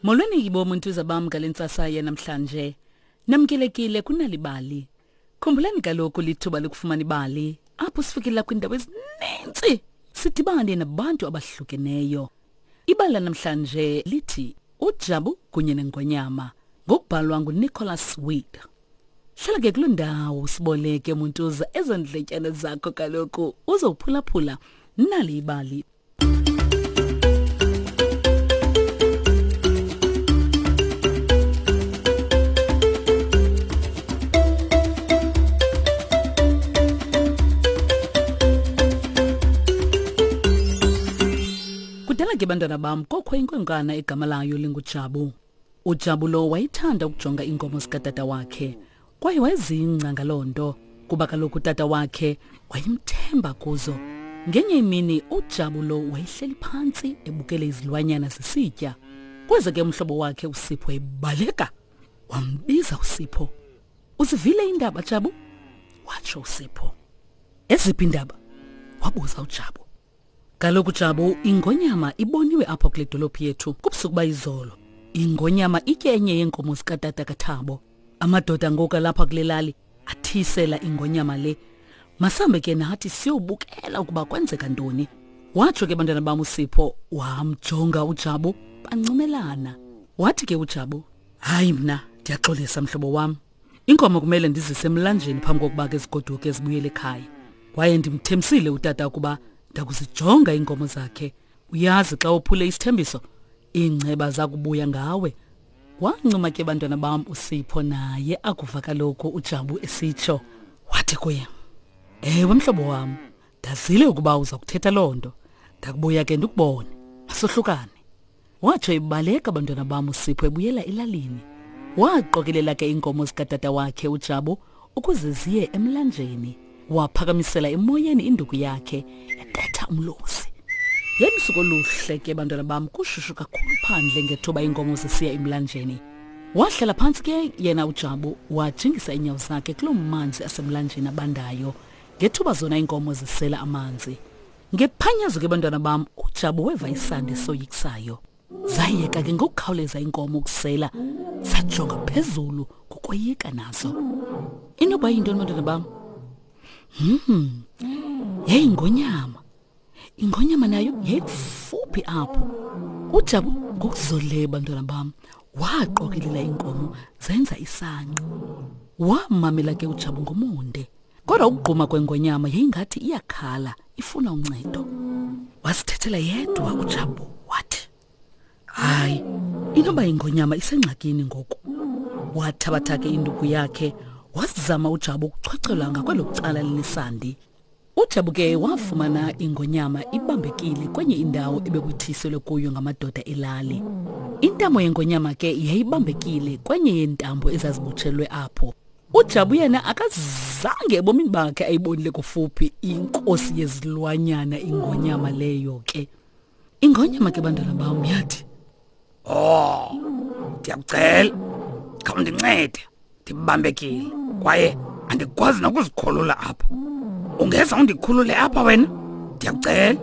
Molweni yibo muntuza bam ngale ntsasa yanamhlanje. Namkelekile kunalibali. Khumbulani kaloku lithuba lokufumana ibali apho sifikela kwiindawo ezininzi sidibane nabantu abahlukeneyo. Ibali lanamhlanje lithi uJabu kunye nengonyama ngokubhalwa nguNicholas Wade. Hlala ke kuloo ndawo siboleke muntuza ezo ndletyana zakho kaloku uzophulaphula nali ibali. Kudala ke bantwana bam kokho inkwenkwana egama layo linguJabu. UJabu lo wayethanda ukujonga iinkomo zikatata wakhe kwaye wayezingca ngaloo nto kuba kaloku utata wakhe wayemthemba kuzo. Ngenye imini uJabu lo wayehleli phantsi ebukele izilwanyana zisitya. Kweze ke umhlobo wakhe uSipho ebaleka. Wambiza uSipho. Uzivile iindaba Jabu? Watsho uSipho. Eziphi iindaba? Wabuza uJabu. Kaloku Jabu, ingonyama iboniwe apha kule dolophu yethu kubusuku bayizolo. Ingonyama itye enye yeenkomo zikatata kaThabo. Amadoda ngoku alapha kule lali athisela ingonyama le. Masambe ke nathi siyobukela ukuba kwenzeka ntoni. Watsho ke bantwana bam uSipho wamjonga uJabu bancumelana. Wathi ke uJabu, hayi mna ndiyaxolisa mhlobo wam. Inkomo kumele ndizise emlanjeni phambi kokuba ke zigoduke zibuyele ekhaya. Kwaye ndimthembisile utata ukuba ndakuzijonga iinkomo zakhe. Uyazi xa uphule isithembiso, iingceba zakubuya ngawe. Wancuma ke bantwana bam uSipho naye akuva kaloku uJabu esitsho. Wathi kuye, Ewe mhlobo wam, ndazile ukuba uza kuthetha loo nto. Ndakubuya ke ndikubone. Masohlukane. Watsho ebaleka bantwana bam uSipho ebuyela elalini. Waqokelela ke iinkomo zikatata wakhe uJabu ukuze ziye emlanjeni. Waphakamisela emoyeni induku yakhe ebetha umlozi. Yayilusuku oluhle ke bantwana bam kushushu kakhulu phandle ngethuba iinkomo zisiya emlanjeni. Wahlala phantsi ke yena uJabu wajingisa iinyawo zakhe kuloo manzi asemlanjeni abandayo ngethuba zona iinkomo zisela amanzi. Ngephanyazo ke bantwana bam uJabu weva isandi esoyikisayo. Zayeka ke ngokukhawuleza iinkomo ukusela zajonga phezulu ngokoyika nazo. Inoba yintoni bantwana bam? Hmm. Yayingonyama. Ingonyama nayo yayikufuphi apho. UJabu ngokuzolileyo bantwana bam waqokelela iinkomo zenza isangqa. Wamamela ke uJabu ngomonde. Kodwa ukugquma kwengonyama yayingathi iyakhala ifuna uncedo. Wasithethela yedwa uJabu wathi, "Hayi, inoba ingonyama isengxakini ngoku." Wathabatha ke induku yakhe wazama uJabu ukuchwechwela ngakwelo cala linesandi. UJabu ke wafumana ingonyama ibambekile kwenye indawo ebekuthiselwe kuyo ngamadoda elali. Intamo yengonyama ke yayibambekile kwenye yeentambo ezazibotshelwe apho. uJabu yena akazange ebomini bakhe ayibonile kufuphi inkosi yezilwanyana ingonyama leyo ke. Ingonyama ke bantwana bam yathi, Oh, ndiyakucela khawundincede ndibambekile kwaye andikwazi nokuzikhulula apha. Ungeza undikhulule apha wena? Ndiyakucela.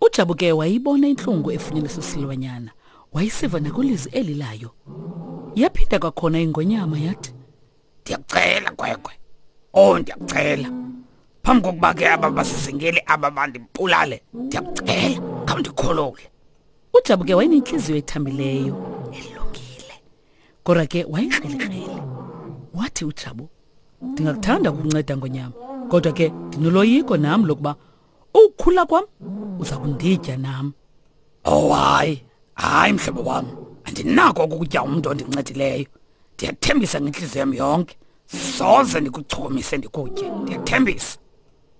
UJabu ke wayibona intlungu efunyaniswe silwanyana, wayisiva nakwilizwi eli layo. Yaphinda kwakhona ingonyama yathi, Ndiyakucela kwekwe. Oh, ndiyakucela. Phambi kokuba ke aba basizingeli aba bandibulale, ndiyakucela khawundikhulule. UJabu ke wayenentliziyo ethambileyo, elungile. Kodwa ke wayekrelekrele. Wathi uJabu, ndingakuthanda ukunceda ngonyama, kodwa ke ndinoloyiko nam lokuba ukukhula kwam uza kunditya nam. Oh hayi, hayi mhlobo wam, andinako ukutya umntu ondincedileyo. Ndiyathembisa ngentliziyo yam yonke, soze ndikuchukumise ndikutye, ndiyathembisa.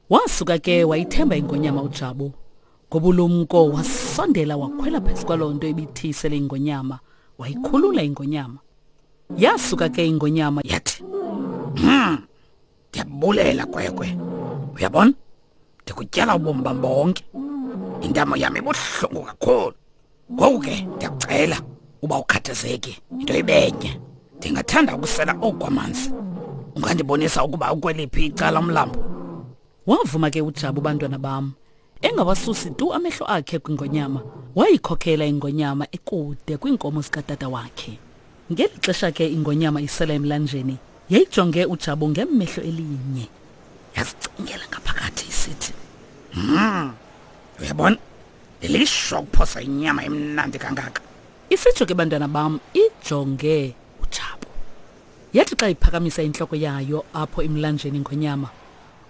Wasuka ke wayithemba ingonyama uJabu. Ngobulumko wasondela wakhwela phezu kwaloo nto ibithiyisele ingonyama, wayikhulula ingonyama. Yasuka ke ingonyama yathi, Ndiyabulela kwekwe. Uyabona? Ndikutyala ubomi bam bonke. Intamo yam ibuhlungu kakhulu. Ngoku ke ndiyakucela uba ukhathazeki into ibenye. Ndingathanda ukusela oku kwamanzi. Ungandibonisa ukuba ukweliphi icala umlambo? Wavuma ke uJabu bantwana bam, engawasusi tu amehlo akhe kwingonyama. Wayikhokhela ingonyama ekude kwiinkomo zikatata wakhe. Ngeli xesha ke ingonyama isela emlanjeni yayijonge uJabu ngemehlo elinye. Yazicingela ngaphakathi isithi, "Hmm, uyabona lilishwa ukuphosa inyama emnandi kangaka." Isitsho ke bantwana bam ijonge uJabu. Yathi xa iphakamisa intloko yayo apho emlanjeni ingonyama,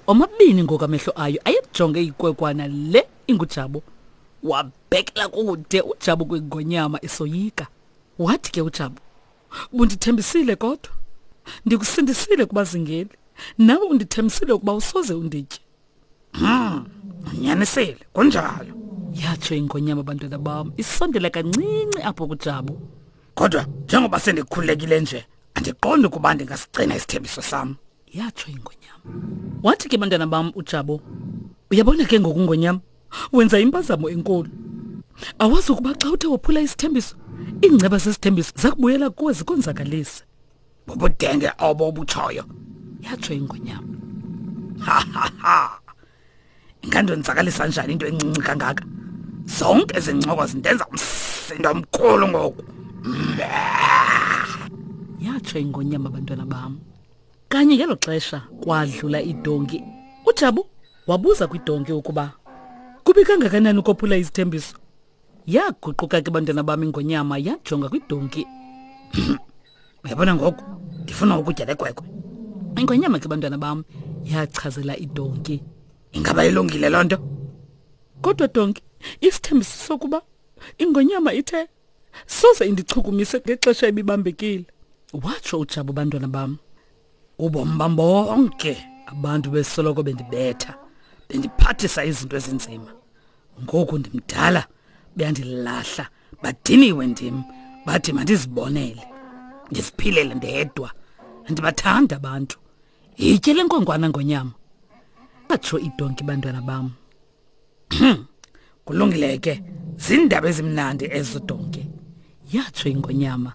omabini ngoku amehlo ayo ayejonge ikwekwana le inguJabu. Wabhekela kude uJabu kwingonyama esoyika. Wathi ke uJabu, "Bundithembisile kodwa. Ndikusindisile kubazingeli. Nawe undithembisile ukuba usoze unditye." Unyanisile, kunjalo. Yatsho ingonyama bantwana bam, isondela kancinci apho kuJabu. Kodwa njengoba sendikhululekile nje, andiqondi ukuba ndingasigcina isithembiso sam. Yatsho ingonyama. Wathi ke bantwana bam uJabu, "Uyabona ke ngoku ngonyama, wenza impazamo enkulu. Awazi ukuba xa uthe wophula isithembiso, iingceba zesithembiso zakubuyela kuwe zikonzakalise." Bubudenge obo obutshoyo. Yatsho ingonyama. Ha ha ha. Ingandonzakalisa njani into encinci kangaka? Zonke ezi ncoko zindenza umsindo omkhulu ngoku. Yatsho ingonyama bantwana bam. Kanye ngelo xesha kwadlula idonki. UJabu wabuza kwidonki ukuba kubi kangakanani ukophula izithembiso. Yaguquka ke bantwana bam ingonyama yajonga kwidonki. Uyabona ngoku ndifuna ukutya le kwekwe. Ingonyama ke bantwana bam yachazela idonki. Ingaba ilungile loo nto? Kodwa donki, isithembiso sokuba ingonyama ithe soze indichukumise ngexesha ebibambekile. Watsho uJabu bantwana bam. Ubomi bam bonke abantu besoloko bendibetha, bendiphathisa izinto ezinzima. Ngoku ndimdala, beyandilahla, badiniwe ndim, bathi mandizibonele, ndiziphilele ndedwa. Andibathandi abantu. Yitye le nkwenkwana ngonyama. Atsho idonki bantwana bam. Kulungile ke, zindaba ezimnandi ezo donki. Yatsho ingonyama.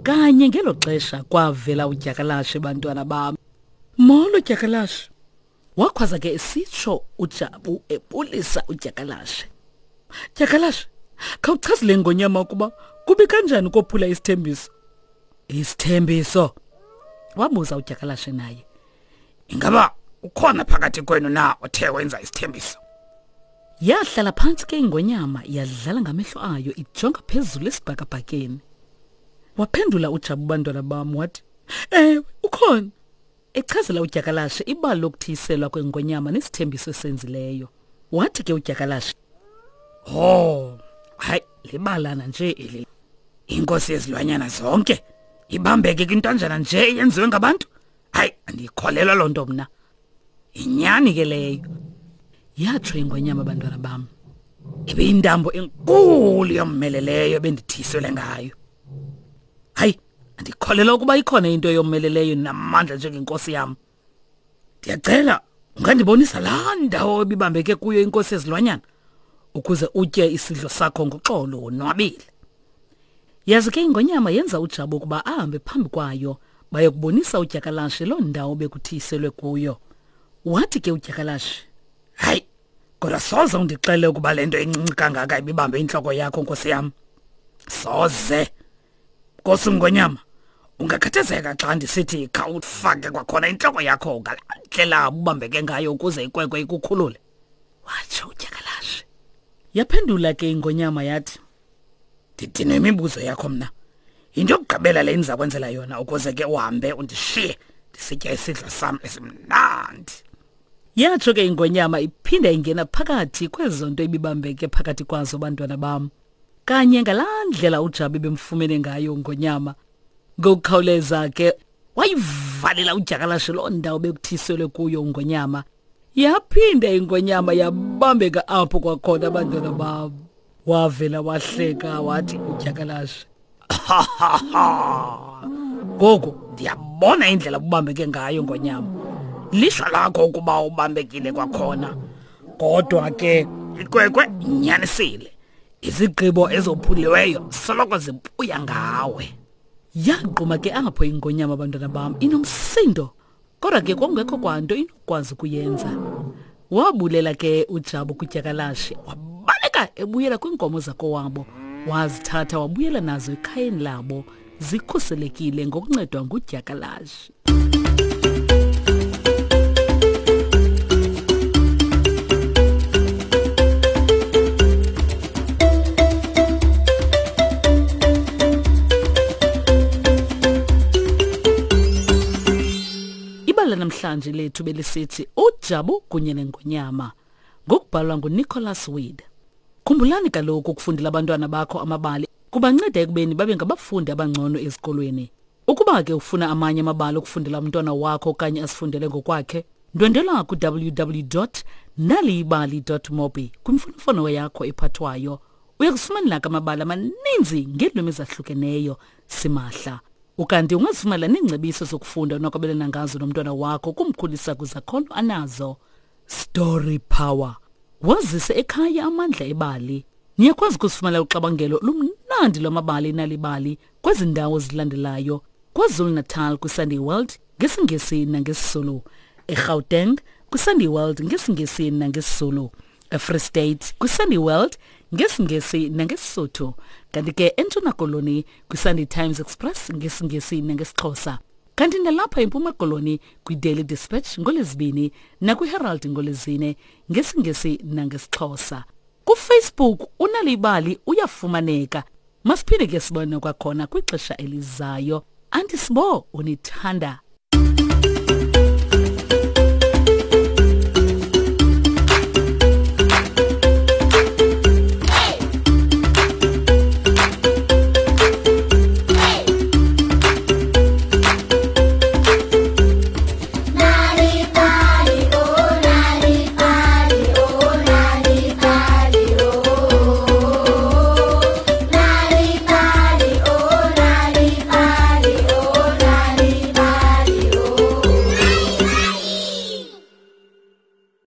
Kanye ngelo xesha kwavela udyakalashe bantwana bam. Molo dyakalashe. Wakhwaza ke esitsho uJabu ebulisa udyakalashe. Dyakalashe, khawuchaze le ngonyama ukuba kubi kanjani ukophula isithembiso. Isithembiso? Wabuza udyakalashe naye. Ingaba ukhona phakathi kwenu na othe wenza isithembiso? Yahlala phantsi ke ingonyama yadlala ngamehlo ayo ijonga phezulu esibhakabhakeni. Waphendula uJabu bantwana bam wathi, "Ewe, ukhona." Echazela udyakalashe ibali lokuthiyiselwa kwengonyama nesithembiso esenzileyo. Wathi ke udyakalashe, "Oh, hayi libalana nje eli. Inkosi yezilwanyana zonke ibambeke kwintanjana nje eyenziwe ngabantu. Hayi, andiyikholelwa loo nto mna. Yinyani ke leyo." Yatsho ingonyama bantwana bam. Ibiyintambo enkulu yommeleleyo ebendithiyiselwe ngayo. Hayi, andikholelwa ukuba ikhona into eyomeleleyo namandla njengenkosi yam. Ndiyacela ungandibonisa laa ndawo ebibambeke kuyo inkosi yezilwanyana ukuze utye isidlo sakho ngoxolo wonwabile. Yazi ke ingonyama yenza uJabu ukuba ahambe phambi kwayo bayokubonisa udyakalashe loo ndawo bekuthiyiselwe kuyo. Wathi ke udyakalashe, "Hayi, kodwa soze undixele ukuba le nto incinci kangaka ibibambe intloko yakho nkosi yam. Soze. Nkosi Ngonyama, ungakhathazeka xa ndisithi khawufake kwakhona intloko yakho ngalaa ndlela ubambeke ngayo ukuze ikwekwe ikukhulule." Watsho udyakalashe. Yaphendula ke ingonyama yathi, "Ndidinwe imibuzo yakho mna. Yinto yokugqibela le ndiza kwenzela yona ukuze ke uhambe undishiye ndisitya isidlo sam esimnandi." Yatsho ke ingonyama iphinda ingena phakathi kwezo nto ibibambeke phakathi kwazo bantwana bam. Kanye ngalaa ndlela uJabu ebemfumene ngayo ngonyama. Ngokukhawuleza ke wayivalela udyakalashe loo ndawo bekuthiselwe kuyo ungonyama. Yaphinda ingonyama yabambeka apho kwakhona abantwana bam. Wavela wahleka wathi udyakalashe, Ngoku ndiyabona indlela ubambeke ngayo ngonyama. Lishwa lakho ukuba ubambekile kwakhona. Kodwa ke ikwekwe inyanisile. Izigqibo ezophuliweyo soloko zibuya ngawe. Yagquma ke apho ingonyama bantwana bam inomsindo. Kodwa ke kwakungekho kwanto inokwazi ukuyenza. Wabulela ke uJabu kudyakalashe wabaleka Wabaleka ebuyela kwiinkomo zakowabo, wazithatha wabuyela nazo ekhayeni labo zikhuselekile ngokuncedwa ngudyakalashe. Ibali lanamhlanje lethu belisithi uJabu kunye nengonyama ngokubhalwa nguNicholas Wade. Khumbulani kaloku ukufundela abantwana bakho amabali kubanceda ekubeni babe ngabafundi abangcono ezikolweni. Ukuba ke ufuna amanye amabali okufundela umntwana wakho okanye asifundele ngokwakhe, ndwendwela ku-www naliyibali mobi kwimfonomfono yakho ephathwayo. Uya kufumanela ke amabali amaninzi ngeelwimi ezahlukeneyo simahla. Ukanti ungazifumana neengcebiso zokufunda onokwabelana ngazo nomntwana wakho kumkhulisa kwizakhono anazo. Story Power. Wazise ekhaya amandla ebali. Niyakwazi ukusifumana uxabangelo lumnandi lwamabali nalibali kwezi ndawo zilandelayo. KwaZulu-Natal kwiSunday World ngesiNgesi nangesizulu. eGauteng kwiSunday World ngesiNgesi nangesizulu. eFree State kwiSunday World ngesiNgesi nangesisotho. Kanti ke eNtshona Koloni kwiSunday Times Express ngesiNgesi nangesixhosa. Kanti nalapha eMpuma Koloni kwiDaily Dispatch ngoLwezibini nakwiHerald ngoLwezine ngesiNgesi nangesixhosa. KuFacebook uNalibali uyafumaneka. Masiphinde ke sibone kwakhona kwixesha elizayo. Anti Sibo unithanda.